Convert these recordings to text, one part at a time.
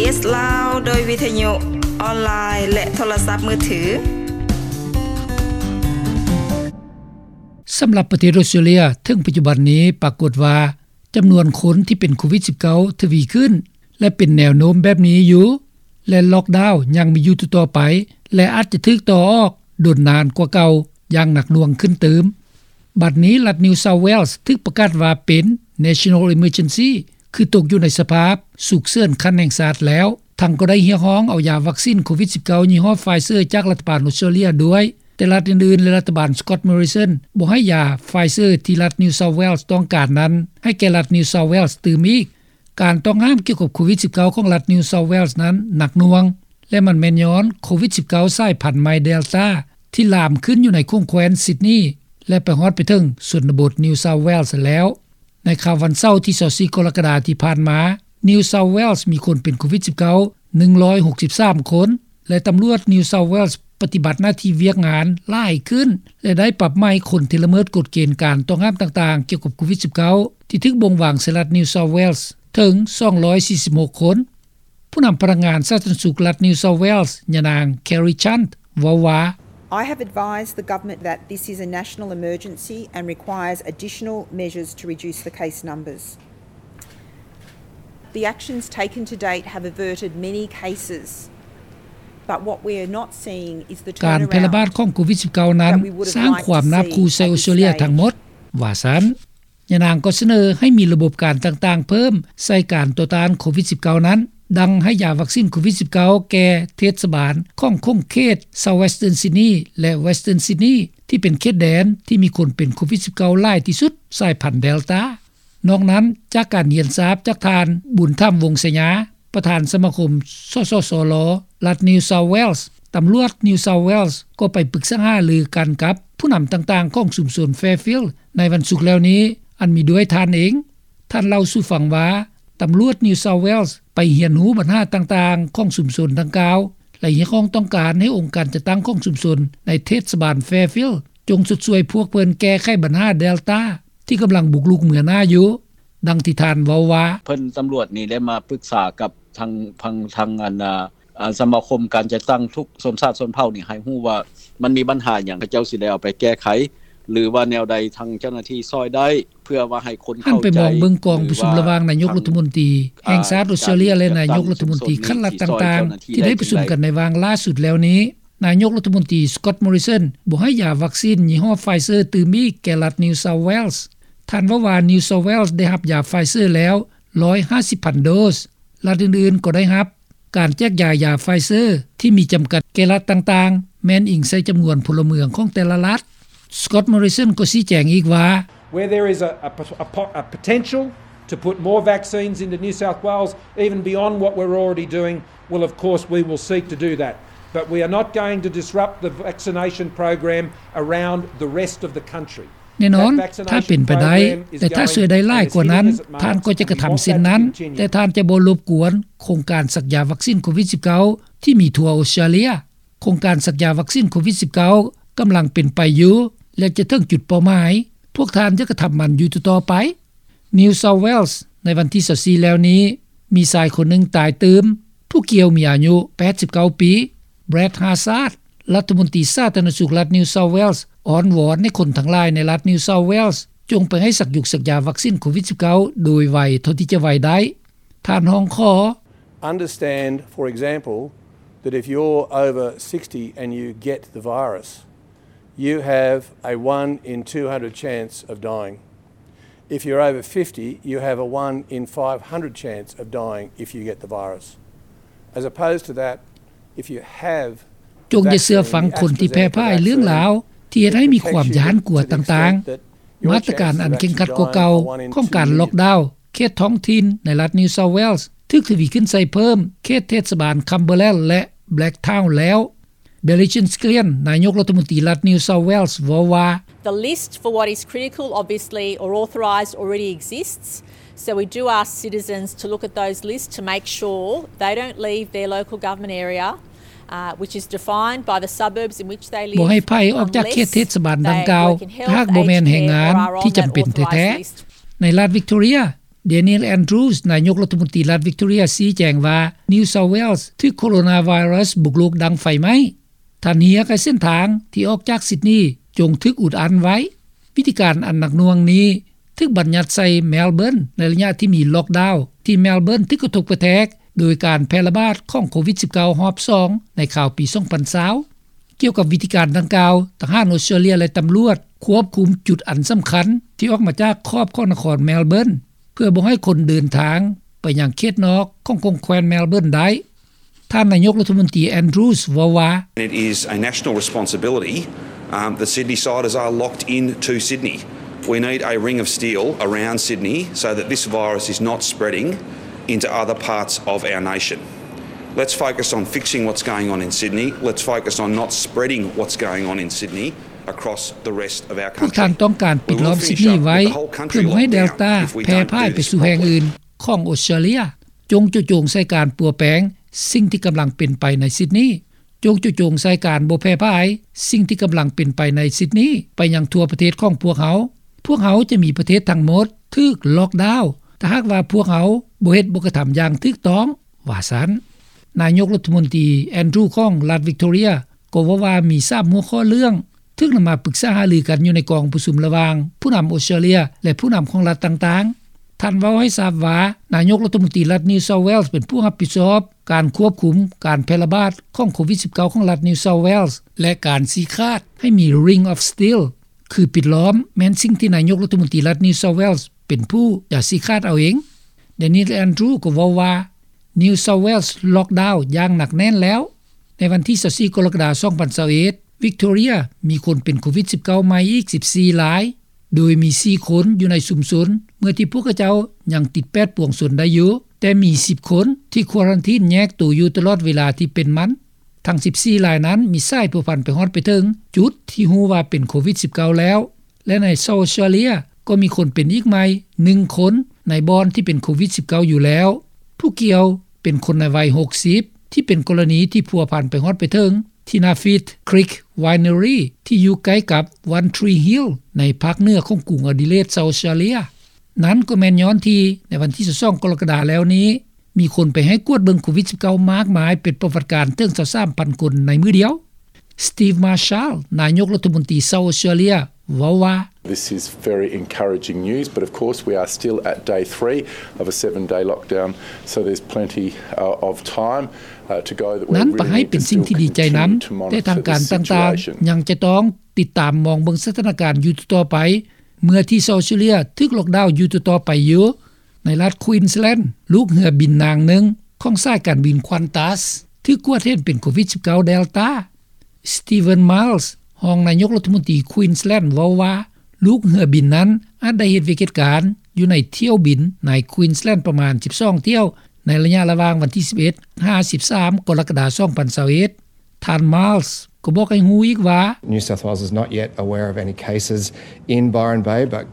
ເອສ ລາວ ໂດຍວິທະຍຸອອນລາຍ ແລະ ໂທລະສັບມືຖື. ສຳລັບປະເທດອອສເຕຣເລຍ ເຖິງປັດຈຸບັນນີ້ປາກົດວ່າ ຈຳນວນຄົນທີ່ເປັນໂຄວິດສິບເກົ້າ ທະວີຂຶ້ນ ແລະ ເປັນແນວໂນ້ມແບບນີ້ຢູ່ ແລະ ລັອກດາວຍັງມີຢູ່ຕໍ່ໆໄປ ແລະ ອາດຈະຖືກຕໍ່ອອກ ດົນນານກວ່າເກົ່າຢ່າງໜັກໜ່ວງຂຶ້ນຕື່ມ. ບັດນີ້ລັດ New South Wales ຖືກປະກາດວ່າເປັນ National Emergency ຄືຕົກຢູ່ໃນສະພາບສຸກເສີນຂັ້ນແຫ່ງຊາດແລ້ວ, ທັງກໍໄດ້ຮຽກຮ້ອງເອົາຢາວັກຊິນໂຄວິດສິບເກົ້າຍີ່ຫໍ້ Pfizer ຈາກລັດຖະບານອອສເຕຣເລຍດ້ວຍ, ແຕ່ລັດອື່ນໆ ແລະ ລັດຖະບານ Scott Morrison ບໍ່ໃຫ້ຢາ Pfizer ທີ່ລັດ New South Wales ຕ້ອງການນັ້ນ ໃຫ້ແກ່ລັດ New South Wales ຕື່ມອີກ. ການຕ້ອງຫ້າມກ່ຽວກັບໂຄວິດສິບເກົ້າ ຂອງລັດ New South Wales ນັ້ນໜັກໜ່ວງ ແລະ ມັນແມ່ນຍ້ອນໂຄວິດສິບເກົ້າ ສາຍພັນໃໝ່ Delta ທີ່ລາມຂຶ້ນຢູ່ໃນຂົງແຄວ້ນ Sydney ແລະ ໄປຮອດໄປເຖິງຊົນນະບົດ New South Wales ແລ້ວ. ໃນຄ່ຳວັນເສົາທີຊາວສີ່ ກໍລະກະດາທີ່ຜ່ານມາ New South Wales ມີຄົນເປັນໂຄວິດສິບເກົ້າ ໜຶ່ງຮ້ອຍຫົກສິບສາມຄົນ ແລະ ຕຳຫຼວດ New South Wales ປະຕິບັດໜ້າທີ່ວຽກງານຫຼາຍຂຶ້ນ ແລະ ໄດ້ປັບໃໝຄົນທີ່ລະເມີດກົດເກນການຕ້ອງຫ້າມຕ່າງໆ ກ່ຽວກັບໂຄວິດສິບເກົ້າ ທີ່ຖືກບົ່ງວາງໃສ່ລັດ New South Wales ເຖິງສອງຮ້ອຍສີ່ສິບຫົກຄົນ. ຜູ້ນຳພະນັກງານສາທາລະນະສຸກລັດ New South Wales ຍານາງ Kerry Chant ເວົ້າວ່າ I have advised the government that this is a national emergency and requires additional measures to reduce the case numbers. The actions taken to date have averted many cases, but what we are not seeing is the turnaround ການແຜ່ລະບາດຂອງໂຄວິດສິບເກົ້ານັ້ນ ສ້າງຄວາມໜາບຂູ່ໃສ່ອອສເຕຣເລຍທັງໝົດ ວ່າຊັ້ນ. ຍານາງກໍສະເໜີໃຫ້ມີລະບົບການຕ່າງໆເພີ່ມໃສ່ການຕໍ່ຕ້ານໂຄວິດສິບເກົ້ານັ້ນ, ດັ່ງໃຫ້ຢາວັກຊິນໂຄວິດສິບເກົ້າແກ່ເທດສະບານຂອງຂົງເຂດ South Western Sydney ແລະ Western Sydney ທີ່ເປັນເຂດແດນທີ່ມີຄົນເປັນໂຄວິດສິບເກົ້າຫຼາຍທີ່ສຸດ ສາຍພັນ Delta. ນອກນັ້ນ, ຈາກການຮຽນຊາບຈາກທ່ານ ບຸນທຳ ວົງໄຊຍາ ປະທານສະມາຄົມ ສສສລ ລັດ New South Wales, ຕຳຫຼວດ New South Wales ກໍໄປປຶກສາຫາລືກັນກັບຜູ້ນຳຕ່າງໆຂອງຊຸມຊົນ Fairfield ໃນວັນສຸກແລ້ວນີ້, ອັນມີດ້ວຍທ່ານເອງ. ທ່ານເລົ່າສູ່ຟັງວ່າ ຕຳຫຼວດ New South Wales ໄປຮຽນຮູ້ບັນຫາຕ່າງໆຂອງຊຸມຊົນດັ່ງກ່າວ ແລະ ຮຽກຮ້ອງຕ້ອງການໃຫ້ອົງການຈັດຕັ້ງຂອງຊຸມຊົນໃນເທດສະບານ Fairfield ຈົ່ງຊົດຊ່ວຍພວກເພິ່ນແກ້ໄຂບັນຫາ Delta ທີ່ກຳລັງບຸກລຸກເໜືອໜ້າຢູ່. ດັ່ງທີ່ທ່ານເວົ້າວ່າ ເພິ່ນ ຕຳຫຼວດນີ້ໄດ້ມາປຶກສາກັບທາງ ທາງ ທາງ ອັນ ອາ ສະມາຄົມການຈັດຕັ້ງທຸກຊົນຊາດຊົນເຜົ່ານີ້ ໃຫ້ຮູ້ວ່າມັນມີບັນຫາຫຍັງ ເຂົາເຈົ້າຊິໄດ້ເອົາໄປແກ້ໄຂ ຫຼືວ່າແນວໃດທາງເຈົ້າໜ້າທີ່ຊ່ອຍໄດ້ ເພື່ອວ່າໃຫ້ຄົນເຂົ້າໃຈ ຫັນໄປມອງເບິ່ງກອງປະຊຸມລະຫວ່າງນາຍົກລັດຖະມົນຕີແຫ່ງຊາດອອສເຕຣເລຍ ແລະ ນາຍົກລັດຖະມົນຕີຂັ້ນລັດຕ່າງໆ ທີ່ໄດ້ປະຊຸມກັນໃນວາລະສຸດແລ້ວນີ້, ນາຍົກລັດຖະມົນຕີ Scott Morrison ບໍ່ໃຫ້ຢາວັກຊິນຍີ່ຫໍ້ Pfizer ຕື່ມອີກແກ່ລັດ New South Wales. ທ່ານເວົ້າວ່າ New South Wales ໄດ້ຮັບຢາ Pfizer ແລ້ວ ໜຶ່ງຮ້ອຍຫ້າສິບພັນໂດສ, ລັດອື່ນໆກໍໄດ້ຮັບ. ການແຈກຢາຍຢາ Pfizer ທີ່ມີຈຳກັດແກ່ລັດຕ່າງໆ ແມ່ນອີງໃສ່ຈຳນວນພົນລະເມືອງຂອງແຕ່ລະລັດ. Scott Morrison ກໍຊີ້ແຈງອີກວ່າ Where there is a, a, a, a potential to put more vaccines into New South Wales, even beyond what we're already doing, well, of course, we will seek to do that. But we are not going to disrupt the vaccination program around the rest of the country. ແນ່ນອນ, ຖ້າເປັນໄປໄດ້ ແລະ ຖ້າຊ່ວຍໄດ້ຫຼາຍກວ່ານັ້ນ, ທ່ານກໍຈະກະທຳເຊັ່ນນັ້ນ, ແຕ່ທ່ານຈະບໍ່ລົບກວນໂຄງການສັກຢາວັກຊິນໂຄວິດສິບເກົ້າ ທີ່ມີທົ່ວອອສເຕຣເລຍ. ໂຄງການສັກຢາວັກຊິນໂຄວິດສິບເກົ້າ ກຳລັງເປັນໄປຢູ່ ແລະ ຈະເຖິງຈຸດເປົ້າໝາຍ. ພວກທ່ານຈະກະທຳມັນຢູ່ຕໍ່ໆໄປ. New South Wales ໃນວັນທີຊາວສີ່ແລ້ວນີ້ ມີຊາຍຄົນໜຶ່ງຕາຍຕື່ມ, ຜູ້ກ່ຽວມີອາຍຸແປດສິບເກົ້າປີ. Brad Hazzard ລັດຖະມົນຕີສາທາລະນະສຸກລັດ New South Wales ອ້ອນວອນໃຫ້ຄົນທັງຫຼາຍໃນລັດ New South Wales ຈົ່ງໄປໃຫ້ສັກຢາ ສັກຢາວັກຊິນໂຄວິດສິບເກົ້າ ໂດຍໄວເທົ່າທີ່ຈະໄວໄດ້. ທ່ານຮ້ອງຂໍ Understand, for example, that if you're over sixty and you get the virus, you have a one in two hundred chance of dying. If you're over fifty, you have a one in five hundred chance of dying if you get the virus. As opposed to that, if you have ຈົ່ງຢ່າເຊື່ອຟັງຄົນທີ່ແຜ່ຜາຍເລື່ອງລາວ ທີ່ເຮັດໃຫ້ມີຄວາມຢ້ານກົວຕ່າງໆ. ມາດຕະການອັນເຄັ່ງຄັດກວ່າເກົ່າຂອງການລັອກດາວ ເຂດທ້ອງຖິ່ນໃນລັດ New South Wales ຖືກທະວີຂຶ້ນໃສ່ເພີ່ມ ເຂດເທດສະບານ Cumberland ແລະ Blacktown ແລ້ວ. Brendan Scallion ນາຍົກລັດຖະມົນຕີລັດ New South Wales ເວົ້າວ່າ The list for what is critical, obviously, or authorised already exists. So we do ask citizens to look at those lists to make sure they don't leave their local government area, uh, which is defined by the suburbs in which they live, ບໍ່ໃຫ້ໃຜອອກຈາກເຂດເທດສະບານດັ່ງກ່າວ ຖ້າຫາກບໍ່ແມ່ນແຮງງານທີ່ຈຳເປັນແທ້ໆ. ໃນລັດ Victoria Daniel Andrews ນາຍົກລັດຖະມົນຕີລັດ Victoria ຊີ້ແຈງວ່າ New South Wales ຖືກໂຄໂຣນາໄວຣັສບຸກລຸກດັ່ງໄຟໄໝ້. ທ່ານຮຽກໃຫ້ເສັ້ນທາງທີ່ອອກຈາກ Sydney ຈົ່ງຖືກອຸດອັ້ນໄວ້. ວິທີການອັນໜັກໜ່ວງນີ້ ຖືກບັນຍັດໃສ່ Melbourne ໃນໄລຍະທີ່ມີ Lockdown ທີ່ Melbourne ຖືກກະທົບກະແທກໂດຍການແຜ່ລະບາດຂອງໂຄວິດ-19 ຮອບສອງ ໃນຄາວປີ ສອງພັນຊາວ. ກ່ຽວກັບວິທີການດັ່ງກ່າວ, ທະຫານອອສເຕຣເລັຽ ແລະ ຕຳຫຼວດຄວບຄຸມຈຸດອັນສຳຄັນທີ່ອອກມາຈາກຂອບຂອງນະຄອນ Melbourne ເພື່ອບໍ່ໃຫ້ຄົນເດີນທາງໄປຍັງເຂດນອກຂອງ ຂອງແຂວນ Melbourne ໄດ້. ທ່ານນາຍົກລັດຖະມົນຕີ Andrews ເວົ້າວ່າ It is a national responsibility, um, that Sydneysiders are locked in to Sydney. We need a ring of steel around Sydney so that this virus is not spreading into other parts of our nation. Let's focus on fixing what's going on in Sydney. Let's focus on not spreading what's going on in Sydney across the rest of our country. ພວກທ່ານຕ້ອງການປິດລ້ອມຊິດນີໄວ້ ເພື່ອບໍ່ໃຫ້ເດລຕາແຜ່ຜ່າຍໄປສູ່ແຫ່ງອື່ນຂອງອອສເຕຣເລັຽ. ຈົ່ງເຈາະຈົງໃສ່ການປົວແປງສິ່ງທີ່ກຳລັງເປັນໄປໃນຊິດນີ. ຈົ່ງເຈາະຈົງໃສ່ການບໍ່ແຜ່ຜ່າຍສິ່ງທີ່ກຳລັງເປັນໄປໃນຊິດນີໄປຍັງທົ່ວປະເທດຂອງພວກເຮົາ. ພວກເຮົາຈະມີປະເທດທັງໝົດຖືກ Lockdown ຖ້າຫາກວ່າພວກເຮົາບໍ່ເຮັດ ບໍ່ກະທຳຢ່າງຖືກຕ້ອງ, ວ່າຊັ້ນ. ນາຍົກລັດຖະມົນຕີ Andrews ຂອງລັດ Victoria ກໍເວົ້າວ່າມີສາມຫົວຂໍ້ເລື່ອງ ຖືກນຳມາປຶກສາຫາລືກັນຢູ່ໃນກອງປະຊຸມລະຫວ່າງຜູ້ນຳອອສເຕຣເລັຽ ແລະ ຜູ້ນຳຂອງລັດຕ່າງໆ. ທ່ານເວົ້າໃຫ້ຊາບວ່າ ນາຍົກລັດຖະມົນຕີລັດ New South Wales ເປັນຜູ້ຮັບຜິດຊອບການຄວບຄຸມການແຜ່ລະບາດຂອງໂຄວິດ-19 ຂອງລັດ New South Wales ແລະ ການຊີ້ຂາດໃຫ້ມີ Ring of Steel ຄືປິດລ້ອມ ແມ່ນສິ່ງທີ່ນາຍົກລັດຖະມົນຕີລັດ New South Wales ເປັນຜູ້ຈະຊີ້ຂາດເອົາເອງ. Daniel Andrews ກໍເວົ້າວ່າ New South Wales Lockdown ຢ່າງໜັກແໜ້ນແລ້ວ. ໃນວັນທີ ຊາວສີ່ ກໍລະກະດາ ສອງພັນຊາວເອັດ Victoria ມີຄົນເປັນໂຄວິດ-19 ໃໝ່ອີກ ສິບສີ່ ລາຍ, ໂດຍມີ ສີ່ ຄົນຢູ່ໃນຊຸມຊົນ ເມື່ອທີ່ພວກເຂົາເຈົ້າຍັງຕິດແປດປວງຊົນໄດ້ຢູ່, ແຕ່ມີ ສິບ ຄົນທີ່ຄວາຣັນທີນແຍກໂຕຢູ່ຕະຫຼອດເວລາທີ່ເປັນມັນ. ທັງ ສິບສີ່ ລາຍນັ້ນມີສາຍພົວພັນໄປຮອດໄປເຖິງຈຸດທີ່ຮູ້ວ່າເປັນໂຄວິດ-19 ແລ້ວ. ແລະ ໃນ South Australia ກໍມີຄົນເປັນອີກໃໝ່ ໜຶ່ງ ຄົນໃນບ່ອນທີ່ເປັນໂຄວິດ-19 ຢູ່ແລ້ວ. ຜູ້ກ່ຽວເປັນຄົນໃນໄວ ຫົກສິບ ທີ່ເປັນກໍລະນີທີ່ພົວພັນໄປຮອດໄປເຖິງທີ່ Napheed Creek Winery ທີ່ຢູ່ໃກ້ກັບ One Tree Hill ໃນພາກເໜືອຂອງກຸງ Adelaide South Australia. ນັ້ນກໍແມ່ນຍ້ອນທີ່ໃນວັນທີ ຊາວສອງ ກໍລະກະດາແລ້ວນີ້ ມີຄົນໄປໃຫ້ກວດເບິ່ງໂຄວິດ-19 ມາກມາຍ ເປັນປະຫວັດການເຖິງ ຊາວສາມພັນ ຄົນໃນມື້ດຽວ. Steve Marshall ນາຍົກລັດຖະມົນຕີ South Australia ເວົ້າວ່າ This is very encouraging news, but of course we are still at day three of a seven-day lockdown, so there's plenty, uh, of time, uh, to go that we're really need to still continue to monitor the situation. ນັ້ນປະໃຫ້ເປັນສິ່ງທີ່ດີໃຈນຳ, ແຕ່ທາງການຕ່າງໆຍັງຈະຕ້ອງຕິດຕາມມອງເບິ່ງສະຖານະການຢູ່ຕໍ່ໆໄປ ເມື່ອທີ່ South Australia ຖືກ Lockdown ຢູ່ຕໍ່ໆໄປຢູ່. ໃນລັດ Queensland ລູກເຮືອບິນນາງໜຶ່ງຂອງສາຍການບິນ Qantas ຖືກກວດເຫັນເປັນໂຄວິດ-19 Delta. Stephen Miles ຮອງນາຍົກລັດຖະມົນຕີ Queensland ເວົ້າວ່າ ລູກເຮືອບິນນັ້ນອາດໄດ້ເຮັດວຽກເຮັດການຢູ່ໃນຖ້ຽວບິນໃນ Queensland ປະມານ ສິບສອງ ຖ້ຽວ ໃນໄລຍະລະຫວ່າງວັນທີ ສິບເອັດ ຫາ ສິບສາມ ກໍລະກະດາ ສອງພັນຊາວເອັດ. ທ່ານ Miles ກໍບອກໃຫ້ຮູ້ອີກວ່າ New South Wales is not yet aware of any cases in Byron Bay, but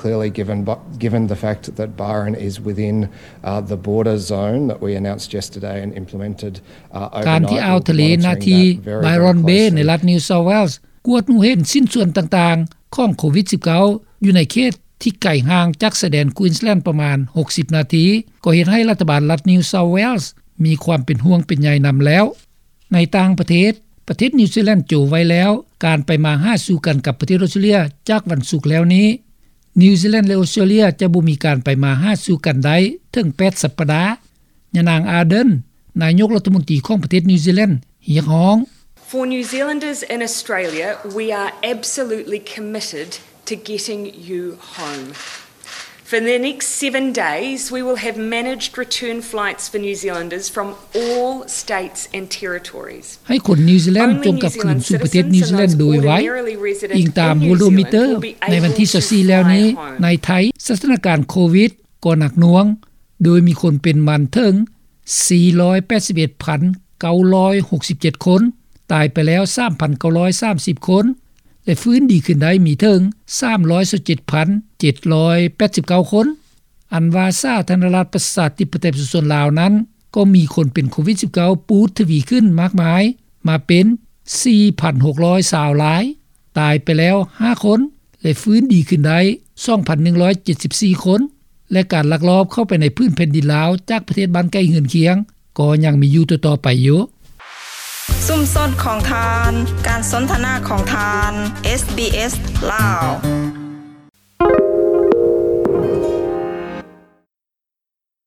clearly given, given the fact that Byron is within, uh, the border zone that we announced yesterday and implemented, uh, overnight, we're monitoring that very, very closely. ການທີ່ອ່າວທະເລໜ້າທີ່ Byron Bay ໃນລັດ New South Wales ກວດຮູ້ເຫັນຊິ້ນສ່ວນຕ່າງໆຂອງໂຄວິດ-19 ຢູ່ໃນເຂດທີ່ໄກຫ່າງຈາກຊາຍແດນ Queensland ປະມານ ຫົກສິບ ນາທີ ກໍເຮັດໃຫ້ລັດຖະບານລັດ New South Wales ມີຄວາມເປັນຫ່ວງເປັນໃຍນຳແລ້ວ. ໃນຕ່າງປະເທດ, ປະເທດນິວຊີແລນໂຈະໄວ້ແລ້ວການໄປມາຫາສູ່ກັນກັບປະເທດອອສເຕຣເລັຽຈາກວັນສຸກແລ້ວນີ້. ນິວຊີແລນ ແລະ ອອສເຕຣເລັຽຈະບໍ່ມີການໄປມາຫາສູ່ກັນໄດ້ເຖິງ ແປດ ສັບປະດາ. ຍານາງ Ardern ນາຍົກລັດຖະມົນຕີຂອງປະເທດນິວຊີແລນ ຮຽກຮ້ອງ For New Zealanders in Australia, we are absolutely committed to getting you home. For the next seven days, we will have managed return flights for New Zealanders from all states and territories. ໃຫ້ຄົນນິວຊີແລນຈົ່ງກັບຄືນສູ່ປະເທດນິວຊີແລນໂດຍໄວ. ອີງຕາມ Worldometer ໃນວັນທີ ຊາວສີ່ ແລ້ວນີ້, ໃນໄທ ສະຖານະການໂຄວິດກໍໜັກໜ່ວງ, ໂດຍມີຄົນເປັນມັນເຖິງ ສີ່ຮ້ອຍແປດສິບເອັດພັນເກົ້າຮ້ອຍຫົກສິບເຈັດ ຄົນ, ຕາຍໄປແລ້ວ ສາມພັນເກົ້າຮ້ອຍສາມສິບ ຄົນ ແລະ ຟື້ນດີຂຶ້ນໄດ້ມີເຖິງ ສາມຮ້ອຍຊາວເຈັດພັນເຈັດຮ້ອຍແປດສິບເກົ້າ ຄົນ. ອັນວ່າສາທາລະນະລັດປະຊາທິປະໄຕປະຊາຊົນລາວນັ້ນ ກໍມີຄົນເປັນໂຄວິດ-19 ປູດທະວີຂຶ້ນມາກມາຍ ມາເປັນ ສີ່ພັນຫົກຮ້ອຍຊາວ ລາຍ, ຕາຍໄປແລ້ວ ຫ້າ ຄົນ ແລະ ຟື້ນດີຂຶ້ນໄດ້ ສອງພັນໜຶ່ງຮ້ອຍເຈັດສິບສີ່ ຄົນ. ແລະ ການລັກລອບເຂົ້າໄປໃນພື້ນແຜ່ນດິນລາວ ຈາກປະເທດບ້ານໃກ້ເຮືອນຄຽງ ກໍຍັງມີຢູ່ຕໍ່ໆໄປຢູ່. ຊຸມຊົນຂອງທ່ານ, ການສົນທະນາຂອງທ່ານ, ເອສບີເອສ ລາວ.